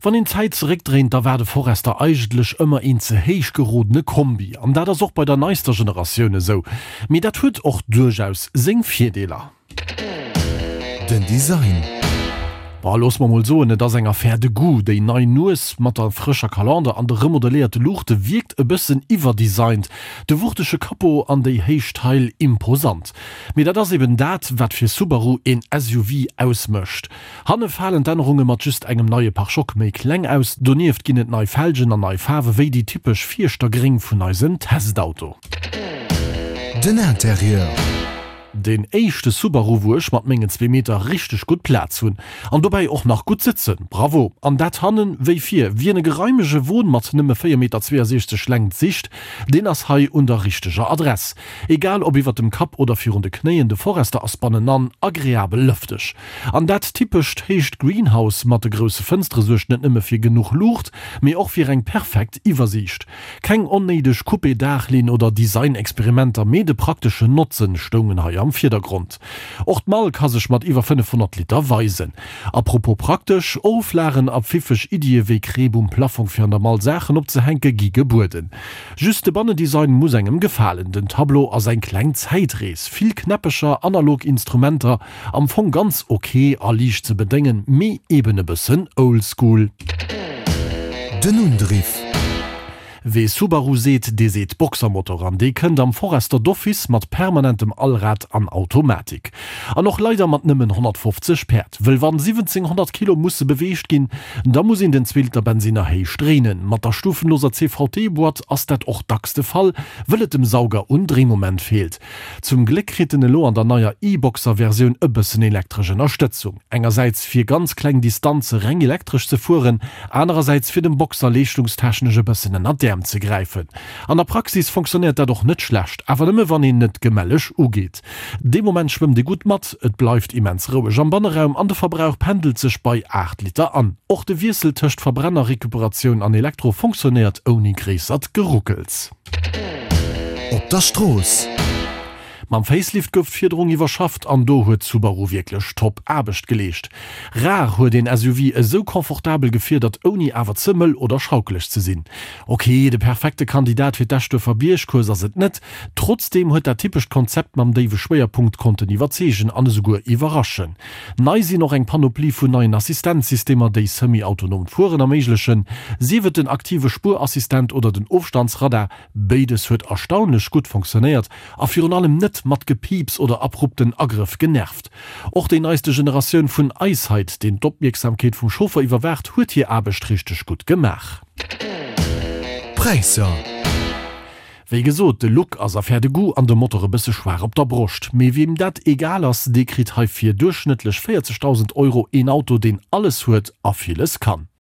Wann een d'Zäit zeréckdréint, da war de Forester eigentlech ëmmer een ze héich gerodene Kombi. An dat ass och bei der neister Generatioun esou. Mee dat huet och duerchaus seng Virdeeler. Den Design. Bon, looss mer mol soen, et ass eng Affaire de goût. Déi nei Nues mat der frëscher Kalander an de remodeléierte Luuchte wierkt e bëssen iwwerdesigned, de wuchtege Capot an déi héich Teil imposant. Mee dat ass eben dat, wat fir Subaru een SUV ausmécht. Hanne falen d'Ännerunge mat just engem neie Pare-choc méi kleng aus. Donieft ginn et nei Felgen an nei Faarwe wéi déi typesch Fierschter-Gréng vun eisem Testauto. Den Interieur. Deen éischte Subaru wou ech mat mengen zwee Meter richteg gutt Plaz hunn. An dobäi och nach gutt sëtzen. Bravo! An dat hannen wéi vir. Wien e geraimege Won mat nëmme 4 Meter 62 Längt sicht, deen ass hei un der richteger Adress. Egal ob iwwert dem Kapp oder virun de Knéien, de Forester ass bannenan agreabel lëfteg. An dat typescht héicht Greenhouse mat de grousse Fënstere suergt net nëmme fir genuch Luucht, mee och fir eng perfekt Iwwersiicht. Keng onnéideg Coupé-Daachlinn oder Design-Experimenter, mee de prakteschen Notzen stoungen hei am Virdergrond. Och d'Mall ka sech mat iwwer 500 Liter weisen. A propos praktesch, Oflagen a pfiffeg Iddie wéi Kreep um Plaffong fir an der Mall Saachen opzehänke gi gebueden. Just de Bannendesign muss engem gefalen. Den Tableau ass eng kleng Zäitrees, vill Knäppecher, analog Instrumenter, Am Fong ganz ok a liicht ze bedéngen, mee eben e bëssen oldschool. Den Undriff. Wee Subaru seet, dee seet Boxermotor an dee kënnt am Forester d'office mat permanentem Allrad an Automatik. An och leider mat nëmmen 150 Päerd. Wëll wann 1700 Kilo musse beweegt ginn, da muss een den Zweeliter-Bensinner héich dréinen. Mat der stufenloser CVT-Boîte ass dat och dacks de Fall, wëll et dem Sauger un Dréimoment feelt. Zum Gléck kritt en elo an der neier e-Boxer-Versioun e bëssen elektresch Ënnerstëtzung. Engersäits fir ganz kleng Distanze reng elektresch ze fueren, anerersäits fir dem Boxer leeschtungstechnesch e bëssen ënner d'Äerm ze gräifen. An der Praxis fonctionnéiert dat och net schlecht, awer nëmme wann een net gemelleg ugeet. Dee Moment schwëmmt ee gutt mat, et bleift immens roueg am Banneraum an de Verbrauch pendelt sech bei 8 Liter an. Och de Wiessel tëscht Verbrenner-Recuperatioun an Elektro fonctionnéiert ouni gréissert Geruckels. Op der Strooss. Mam Facelift gouf d'Fiederung iwwerschafft an do huet Subaru wierklech top Aarbecht geleescht. Rar huet een SUV esou confortabel gefiedert ouni awer ze mëll oder schaukeleg ze sinn. Ok, de perfekte Kandidat fir d'Eschduerfer Biergcourse ass et net, trotzdeem huet dat typescht Konzept mam déiwe Schwéierpunkt konnten iwwerzeegen an esouguer iwwerraschen. Nei sinn och eng Panoplie vun neien Assistenzsystemer, déi semi-autonomt Fueren erméiglechen, sief et den aktive Spuerassistent oder den Ofstandsradar. Béides huet erstaunlech gutt fonctionnéiert a virun allem net mat Gepiips oder abrupten Agrëff genervt. Och déi neiste Generatioun vun EyeSight, deen d'Opmierksamkeet vum Chauffer iwwerwaacht, huet hir Aarbecht richteg gutt gemaach. Präisser. Wéi gesot, de Look ass Affaire de goût an de Motor e bësse schwaach op der Broscht. Mee weem dat egal ass, dee kritt hei fir duerchschnëttlech 40.000 Euro een Auto, deen alles huet a villes kann.